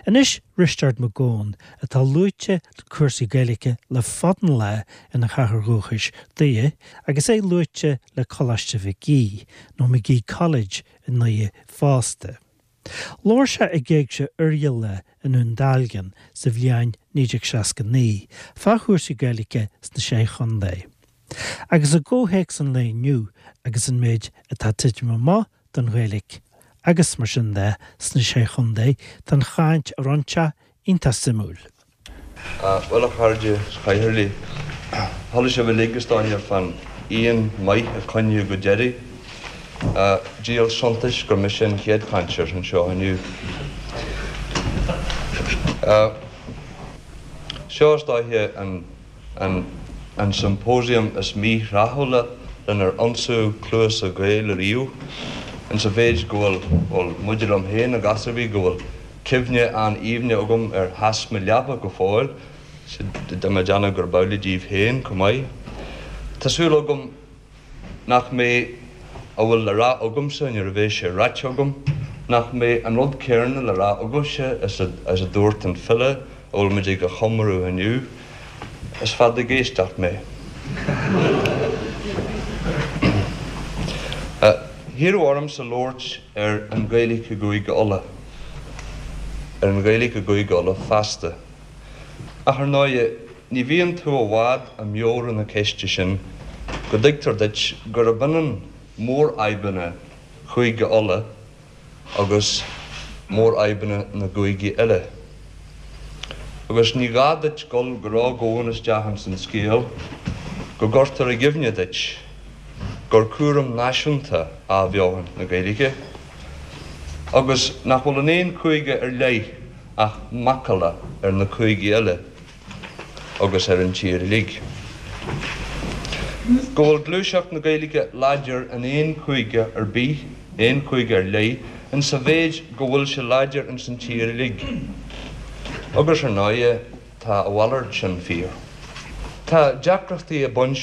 Anois Risteard Mac Gabhann, atá luaite le cúrsaí Gaeilge le fada an lá ina chathair dhúchais, Doire, agus é luaite le Coláiste Mhic Aoidh, nó Magee College i nDoire fosta. Labhair sé ag Éigse Oirialla i nDún Dealgan sa bhliain 1969 fá chúrsaí Gaeilge sna Sé Chontae. Agus i gcomhthéacs an lae inniu agus an méid atá ag titim amach don Ghaeilge agus mar sin de sna Sé Chontae, tá an chaint a rinne sé iontach suimiúil. Bhuel, a chairde is a chathaoirligh, chuala sibh uilig is dóiche fán fhíon maith a coinníodh go deireadh. Díol suntais gur mise an chéad chainteoir anseo inniu. Seo is dóiche an. an symposium is míthráthúla lenar ionsaíodh cluasa Gaeil ariamh, insa mhéid go bhfuil, bhuel, maidir liom féin i gcás ar bith, go bhfuil cuimhne an-aoibhne agam ar theas mo leapa go fóill, tá mé ag déanamh gurb amhlaidh daoibh féin chomh maith. Tá súil agam nach mbeidh a bhfuil le rá agamsa nuair a bheidh sé ráite agam, nach mbeidh an rud céarna le rá agaibhse is a dúirt an file a bhfuil muid ag a chomóradh inniu, Is fada ag éisteacht mé. Hiarradh ormsa labhairt ar an Ghaeilge i gCúige Uladh, ar an Ghaeilge i gCúige Uladh feasta. Ach ar ndóighe, Ní bhíonn tú i bhfad i meabhrú na ceiste sin go dtuigtear duit gurb ionann mórfhadhbanna Chúige Uladh agus mórfhadhbanna na gcúigí eile. Agus ní gá duit dul go ródhomhain isteach ins an scéal go gcuirtear i gcuimhne duit gur cúram náisiúnta athbheochan na Gaeilge agus nach bhfuil in aon chúige ar leith ach macalla ar na cúigí eile. agus ar an tír uilig. Go bhfuil gluaiseacht na Gaeilge láidir in aon chúige ar bith, aon chúige ar leith, in sa mhéid go bhfuil sé láidir ins an tír uilig. Agus ar ndóighe tá a mhalairt sin fíor. Tá deacrachtaí ag baint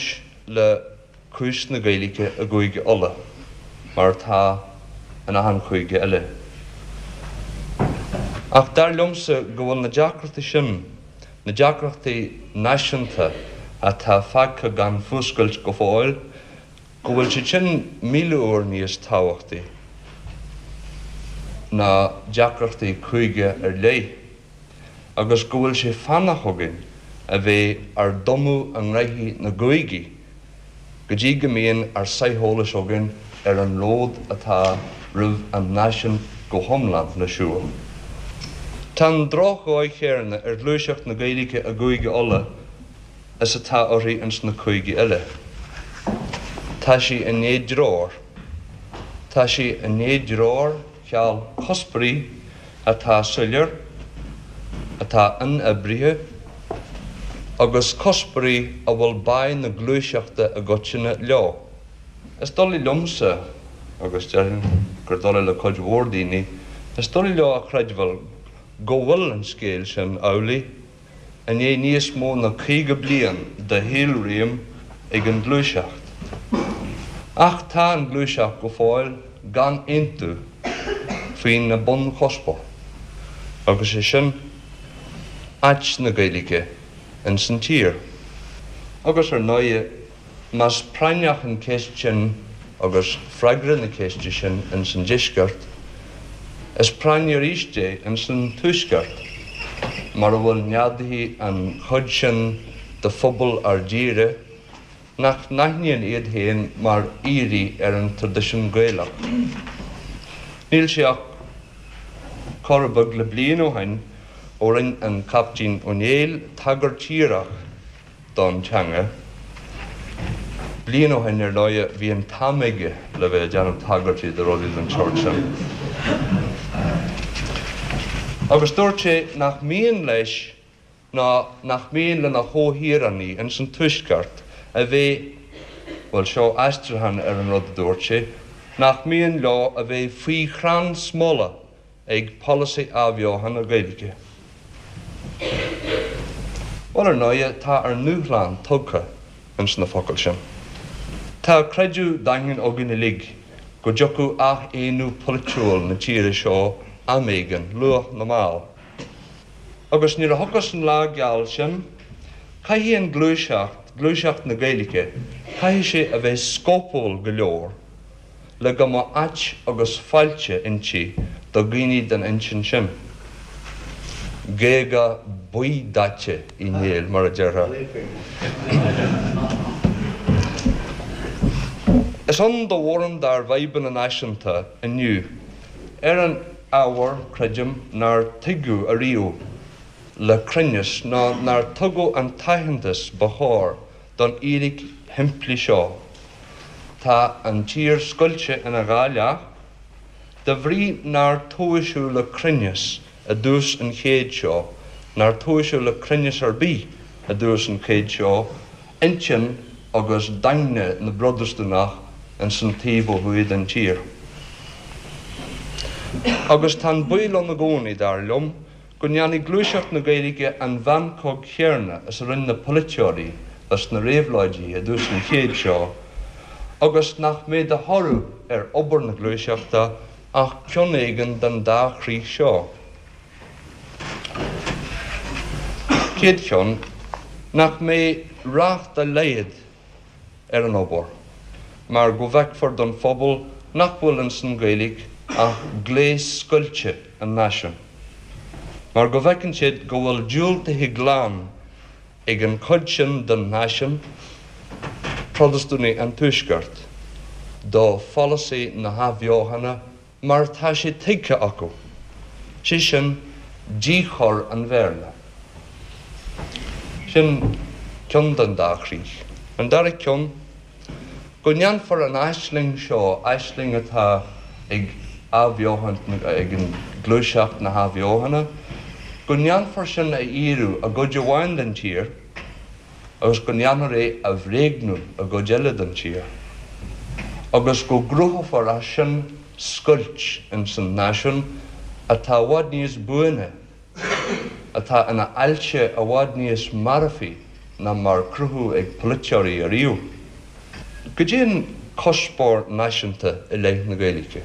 le cúis na Gaeilge i gCúige Uladh, mar atá in achan chúige eile. Ach dar liomsa go bhfuil na deacrachtaí sin, na deacrachtaí náisiúnta atá fágtha gan fuascailt go fóill, go bhfuil siad sin 1000 uair níos tábhachtaí ná deacrachtaí cúige ar leith. agus go bhfuil sé fánach againn a bheith ár dtumadh i ngraithí na gcúigí go dtí go mbíonn ár sáith eolais againn ar an ród atá roimh an náisiún go hiomlán le siúl. Tá an drochdhóigh chéarna ar ghluaiseacht na Gaeilge i gCúige Uladh is atá uirthi ins na cúigí eile. Tá sí i ndiaidh treoir. Tá sí i ndiaidh treoir cheal cuspoirí atá soiléir, atá inoibrithe, agus cuspoirí a bhfuil báidh na gluaiseachta i gcoitinne leo. Is doiligh liomsa, agus déarfainn gur doiligh le cuid mhór daoine, is doiligh leo a chreidbheáil go bhfuil an scéal sin amhlaidh i ndiaidh níos mó ná 50 bliain de shaolréim ag an ghluaiseacht. Ach tá an ghluaiseacht go fóill gan aontú faoina bunchuspóir, agus é sin áit na Gaeilge ins an tír. Agus ar ndóighe, Más práinneach an cheist sin agus freagra na ceiste sin ins an Deisceart, is práinní arís é ins an Tuaisceart, mar a bhfuil neadaithe an chuid sin de phobal ár dtíre nach n-aithníonn iad féin mar aoirí ar an traidisiún Gaelach. Níl sé ach corradh beag le bliain ó shin ó rinn an Caiptín Ó Néill tagairt dhíreach don teanga. Bliain ó shin, ar ndóighe, bhí an t-am aige le bheith ag déanamh tagairtí do rudaí den tsórt sin. Agus dúirt sé nach mian leis ná nach mian lena chomhthíreánaigh ins an Tuaisceart a bheith, bhuel, seo aistriúchán ar an rud a dúirt sé, nach mian leo a bheith faoi chrann smola ag polasaí athbheochan na Gaeilge. Bhuel, ar ndóighe, tá ár ndúshlán tugtha ins na focail sin. Tá creideamh daingean againn uilig go dtiocfadh athaonú polaitiúil na tíre seo am éigin, luath nó mall. Agus nuair a thiocfas an lá geal sin, caithfidh an ghluaiseacht, gluaiseacht na Gaeilge, caithfidh sé a bheith scópúil go leor le go mbeadh áit agus fáilte inti do dhaoine den intinn sin. Géaga buí-daite Uí Néill, mar a déarfá. Is ann do mhórán dár bhfadhbanna náisiúnta inniu ar an ábhar, creidim, nár tuigeadh ariamh le cruinneas ná nár tugadh an t-aitheantas ba chóir don fhíric shimplí seo, tá an tír scoilte ina dhá leath, de bhrí nár tomhaiseadh le cruinneas i dtús an chéid seo, nár tomhaiseadh le cruinneas ar bith i dtús an chéid seo, intinn agus daingne na bProtastúnach ins an taobh ó thuaidh den tír. Agus tá an baol ann i gcónaí, dar liom, go ndéanfaidh gluaiseacht na Gaeilge an mheancóg chéarna is a rinne na polaiteoirí dos na réabhlóidithe i dtús an chéid seo, agus nach mbeidh de thoradh ar obair na gluaiseachta ach ceann éigin den dá chrích seo. Chéad cheann, nach mbeidh rath dá laghad ar an obair, mar go bhfeicfear don phobal nach bhfuil ins an Ghaeilge ach gléas scoilte an náisiúin, mar go bhfeiceann siad go bhfuil diúltaithe glan ag an chuid sin den náisiún, Protastúnaigh an Tuaiscirt, do pholasaí na hathbheochana mar atá sé tuigthe acu, sé sin, díchur an Bhéarla. Sin ceann den dá chrích. An dara ceann, go ndéanfar an aisling seo, aisling atá ag athbheochaint, ag an gluaiseacht na hathbheochana, go ndéanfar sin a fhíorú i gcuid amháin den tír, agus go ndéanfar é a bhréagnú i gcuid eile den tír, agus go gcruthófar as sin scoilt ins an náisiún atá i bhfad níos buaine, atá ina ailse i bhfad níos marfaí ná mar cruthú ag polaiteoirí ariamh. Goidé an cuspóir náisiúnta i leith na Gaeilge?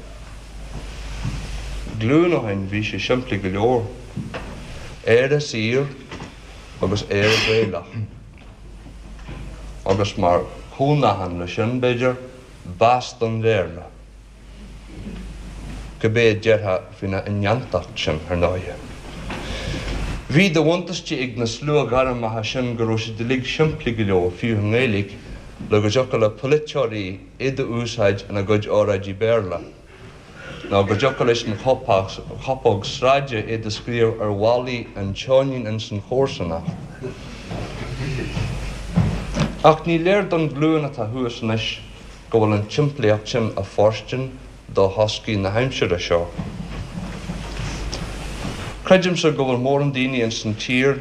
Glúin ó shin bhí sé simplí go leor. Éire saor agus Éire Gaelach. Agus mar chomhnachán le sin, b'fhéidir, bás don Bhéarla. Cibé a déarfá faoina indéantacht sin, ar ndóighe. Bhí de bhuntáiste ag na sluaghairmeacha sin go raibh siad uilig simplí go leor, fiú i nGaeilge, le go dtiocfadh le polaiteoirí iad a úsáid ina gcuid óráidí Béarla, nó go dtiocfadh leis an chopóg sráide iad a scríobh ar bhallaí an tseoinín ins an chomharsanacht. Ach ní léir don ghlúin atá thuas anois go bhfuil an tsimplíocht sin ag fóirstean do thoscaí na haimsire seo. Creidimse go bhfuil mórán daoine ins an tír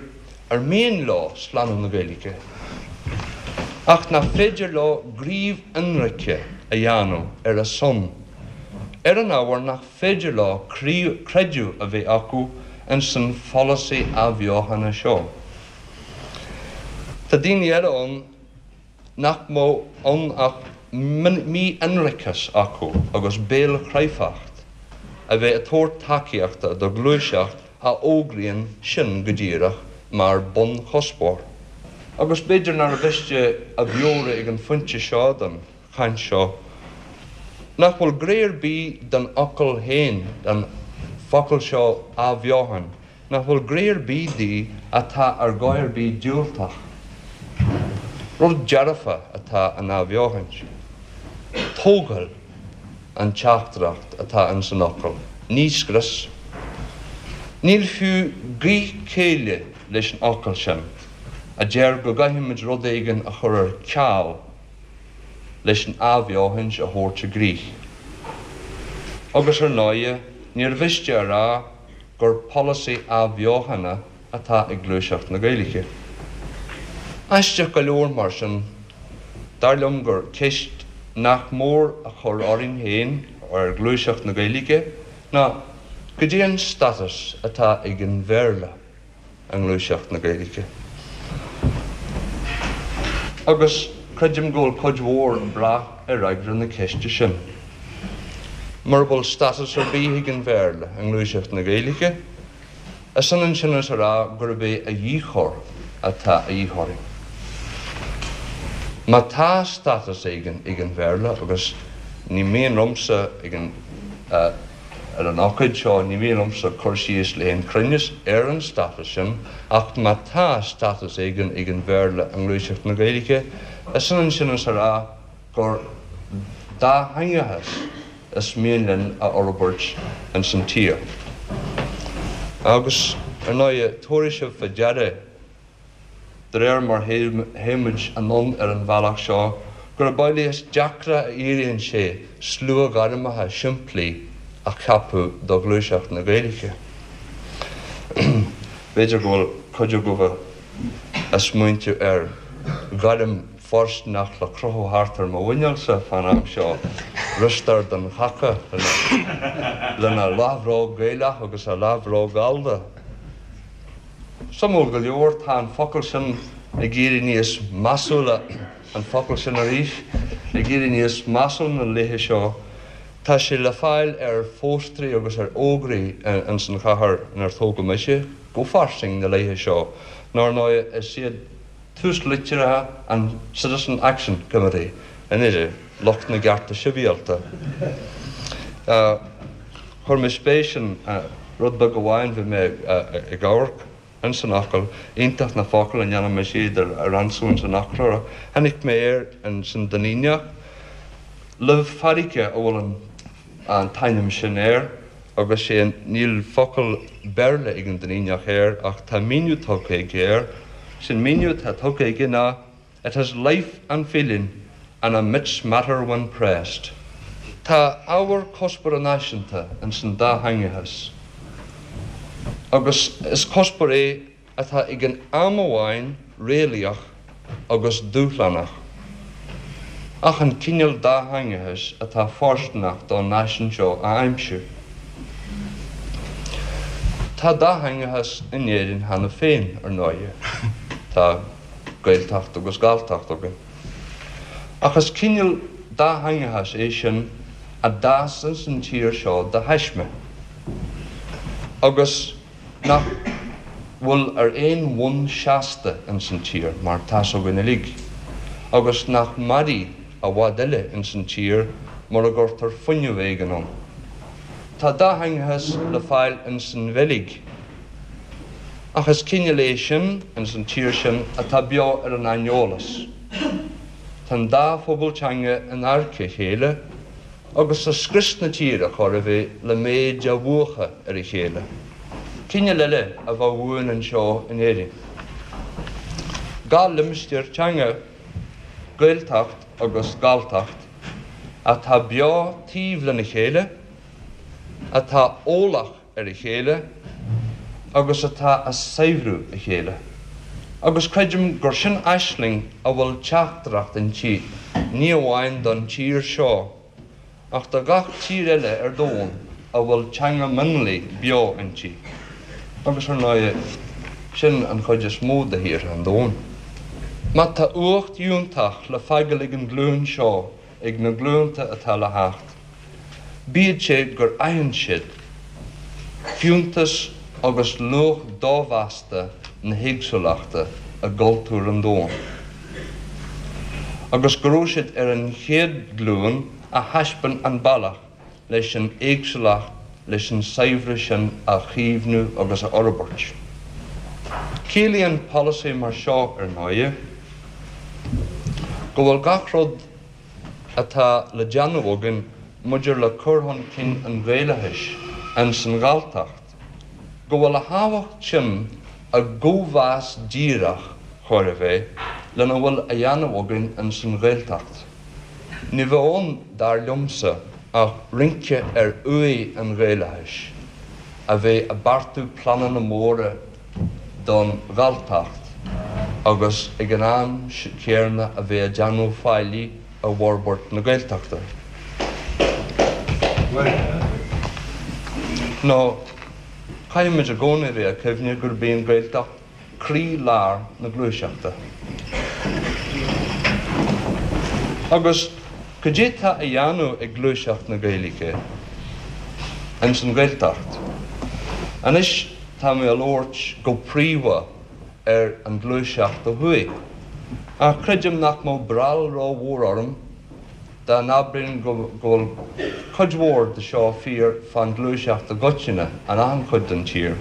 ar mian leo slánú na Gaeilge, ach nach féidir leo gníomh ionraice a dhéanamh ar a son, ar an ábhar nach féidir leo creideamh a bheith acu ins an pholasaí athbheochana seo. Tá daoine eile ann nach mbeadh ann ach mí-ionraiceas acu agus béalchráifeacht a bheith ag tabhairt tacaíochta do ghluaiseacht a fhógraíonn sin go díreach mar bunchuspóir. Agus b'fhéidir nár mhiste a mheabhrú ag an phointe seo den chaint seo nach bhfuil gné ar bith den fhocal féin, den focal seo athbheochan, nach bhfuil gné ar bith di atá ar dhóigh ar bith diúltach. Rud dearfa atá in athbheochaint. Tógáil an teachtaireacht atá ins an fhocal, ní scrios. Níl fiú gaoth céille leis an fhocal sin a deir go gcaithfimid rud éigin a chur ar ceal leis an athbheochaint a thabhairt i gcrích. Agus ar ndóighe, níor mhiste a rá gur polasaí athbheochana atá ag gluaiseacht na Gaeilge. Aisteach go leor, mar sin, dar liom gur ceist nach mór a chur orainn féin, ar ghluaiseacht na Gaeilge, ná goidé an stádas atá ag an Bhéarla i ngluaiseacht na Gaeilge. Agus creidim go bhfuil cuid mhór ag brath ar fhreagra na ceiste sin. Mura bhfuil stádas ar bith ag an Bhéarla i ngluaiseacht na Gaeilge, Is ionann sin is a rá gurb é a dhíchur atá a dhíth orainn. Má tá stádas éigin ag an Bhéarla, agus ní mian liomsa ag an ar an ócáid seo, ní mian liomsa cur síos le haon chruinneas ar an stádas sin, ach má tá stádas éigin ag an Bhéarla i ngluaiseacht na Gaeilge, is ionann sin is a rá gur dátheangachas is mian linn a fhorbairt ins an tír. Agus, ar ndóighe, tabharfaidh sibh fá deara, de réir mar théimid anonn ar an bhealach seo, gurb amhlaidh is deacra a éiríonn sé sluaghairmeacha simplí a cheapadh do ghluaiseacht na Gaeilge. B'fhéidir go bhfuil cuid agaibh ag smaointiú ar ghairm fóirsteanach le crochadh thart ar mo mhuineálsa fán am seo, Risteárd an Chaca lena leathbhróg Gaelach agus a leathbhróg Ghallda. Suimiúil go leor, tá an focal sin ag éirí níos measúla, an focal sin arís, ag éirí níos measúla na laethe seo. Tá sé le fáil ar phóstaerí agus ar fhógraí ins an chathair inar tógadh mise, go fairsing na laethe seo, nó ar ndóigh is iad túslitreacha an Citizen Action Committee i nDoire, lucht na gcearta sibhialta. Chuir mé spéis in rud beag amháin, bhí mé ag amharc ins an fhocal, iontach na focail a ndéanann mise iad a ransú ins an fhoclóir. Tháinig mé air ins an Duinníneach, luibh farraige a bhfuil an an t-ainm sin air agus sé níl focal Béarla ag an Duinníneach air ach tá míniú tugtha aige air. Sin míniú atá tugtha aige ná It has life and feeling and emits matter when pressed. Tá ábhar cuspóra náisiúnta ins an dátheangachas agus is cuspóir é atá ag an am amháin réalaíoch agus dúshlánach, ach an cineál dátheangachais atá fóirsteanach don náisiún seo a aimsiú. Tá dátheangachas in Éirinn cheana féin, ar ndóighe. Tá Gaeltacht agus Galltacht againn. Ach is cineál dátheangachais é sin a d'fhás ins an tír seo de thaisme, agus. nach bhfuil ar aon bhonn seasta ins an tír, mar tá's againn uilig, agus nach mairfidh i bhfad eile ins an tír mura gcuirtear fuinneamh éigin ann. Tá dátheangachas le fáil ins an Bheilg, ach is cineál é sin ins an tír sin atá beo ar an aineolas. Tá an dá phobal teanga in adharca a chéile, agus tá scrios na tíre chóir a bheith le méid a mhúchadh ar a chéile. Cineál eile a bheadh uainn anseo in Éirinn. Dá limistéar teanga, Gaeltacht agus Galltacht, atá beo taobh lena chéile, atá eolach ar a chéile agus atá a saibhriú a chéile. Agus creidim gur sin aisling a bhfuil teachtaireacht inti, ní amháin don tír seo, ach do gach tír eile ar domhan a bhfuil teanga mionlaigh beo inti. Agus ar ndóighe, sin an chuid is mó de thíortha an domhain. Má tá uacht fhiúntach le fágáil ag an ghlúin seo, ag na glúnta atá le theacht, bíodh sé gur aithin siad fiúntas agus luach domheasta na héagsúlachta i gcultúr an domhain, agus go raibh siad ar an chéad ghlúin a thaispeáin an bealach leis an éagsúlacht, leis an saibhreas sin a chaomhnú agus a fhorbairt. Ciallaíonn polasaí mar seo, ar ndóighe, go bhfuil gach rud atá le déanamh againn maidir le cur chun cinn an Ghaelachais ins an Ghalltacht, go bhfuil a thábhacht sin i gcóimheas díreach, chóir a bheith, lena bhfuil a dhéanamh againn ins an Ghaeltacht. Ní bheadh ann, dar liomsa, ach rince ar uaigh an Ghaelachais, a bheith ag beartú pleananna móra don Ghalltacht agus ag an am céanna a bheith ag déanamh faillí i bhforbairt na Gaeltachta. Nó caithfimid i gcónaí a bheith ag cuimhneamh gurb í an Ghaeltacht croí-lár na gluaiseachta. Agus cad é tá a dhéanamh ag gluaiseacht na Gaeilge ins an Ghaeltacht? Anois tá. tá mé a labhairt go príomha ar an ghluaiseacht ó thuaidh. Ach creidim nach mbeadh breall ró-mhór orm dá n-abrainn go bhfuil cuid mhór de seo fíor fán ghluaiseacht i gcoitinne in achan chuid den tír.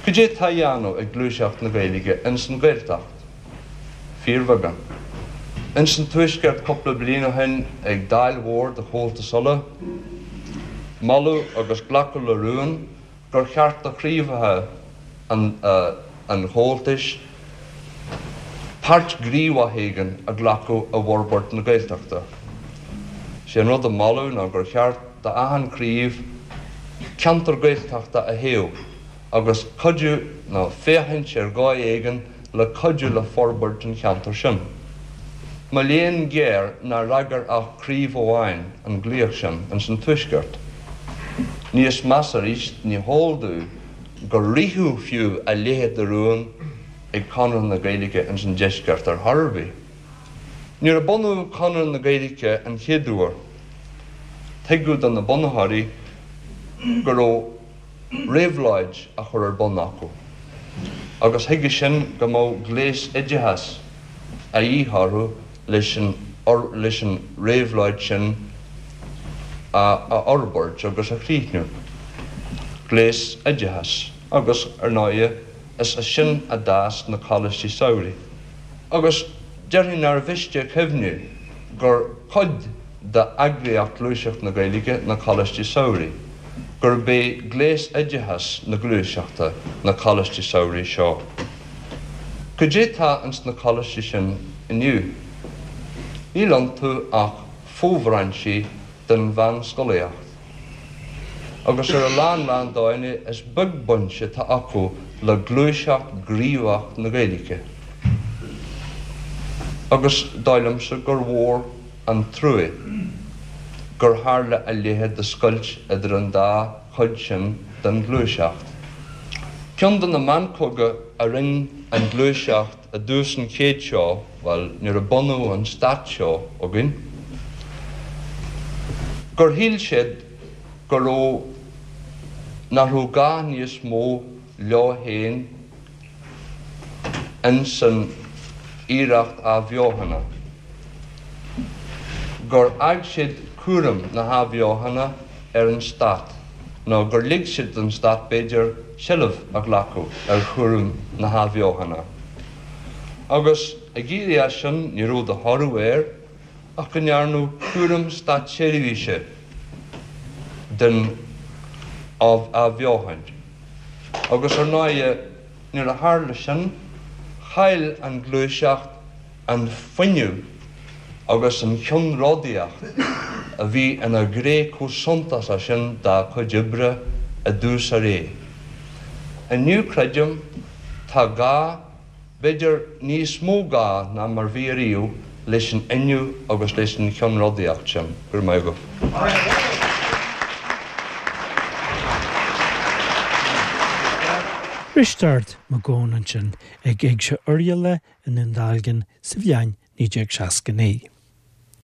Cad é tá á dhéanamh ag gluaiseacht na Gaeilge ins an Ghaeltacht? Fíorbheagán. Ins an Tuaisceart cúpla bliain ó shin ag Dáil mhór de Chomhaltas Uladh, moladh agus glacadh le rún gur cheart do chraobhacha an Chomhaltais páirt ghníomhach éigin a ghlacadh i bhforbairt na Gaeltachta. Sé an rud a moladh ná gur cheart d'achan chraobh ceantar Gaeltachta a thoghadh agus cuidiú nó féachaint ar dhóigh éigin le cuidiú le forbairt an cheantair sin. Mo léan géar nár fhreagair ach craobh amháin an glaoch sin ins an Tuaisceart. Níos measa arís, ní heol domh gur ritheadh fiú a leithéid de rún ag Conradh na Gaeilge ins an Deisceart ar chor ar bith. Nuair a bunaíodh Conradh na Gaeilge an chéad uair, tuigeadh do na bunaitheoirí go raibh réabhlóid á chur ar bun acu, agus chuige sin go mbeadh gléas oideachais a dhíth orthu leis an leis an réabhlóid sin a fhorbairt agus a chríochnú. Gléas oideachais, agus, ar ndóighe, is as sin a d'fhás na coláistí samhraidh. Agus déarfainn nár mhiste a chuimhniú gur cuid d'eagraíocht Gluaiseacht na Gaeilge na Coláistí Samhraidh, gurb é gléas oideachais na Gluaiseachta na Coláistí Samhraidh seo. Cad é tá ins na coláistí sin inniu? Níl iontu ach fo-bhrainsí den mheánscolaíocht. Agus ar a lán lán dóigheanna is beag baint atá acu le gluaiseacht ghníomhach na Gaeilge. Agus dóigh liomsa gur mhór an trua gur tharla a leithéid de scoilt idir an dá chuid sin den ghluaiseacht. Ceann de na meancóga a rinn an ghluaiseacht i dtús an chéid seo, bhuel, nuair a bunaíodh an stát seo againn, gur shíl siad go raibh, nach raibh gá níos mó leo féin ins an iarracht athbheochana, gur fhág siad cúram na hathbheochana ar an stát, nó gur lig siad don stát, b'fhéidir, seilbh a ghlacadh ar chúram na hathbheochana. Agus ag éirí as sin, ní raibh de thoradh air ach go ndearnadh cúram státseirbhíse den athbheochan. Agus ar ndóighe, nuair a tharla sin, chaill an ghluaiseacht an fuinneamh agus an cheannródaíocht a bhí ina ghné chomh suntasach sin dá cuid oibre i dtús a ré. Inniu, creidim, tá gá b'fhéidir níos mó gá ná mar bhí ariamh leis an fhuinneamh agus leis an cheannródaíocht sin. Go raibh maith agaibh. Risteárd Mac Gabhann ansin ag Éigse Oirialla i nDún Dealgan sa bhliain 1969.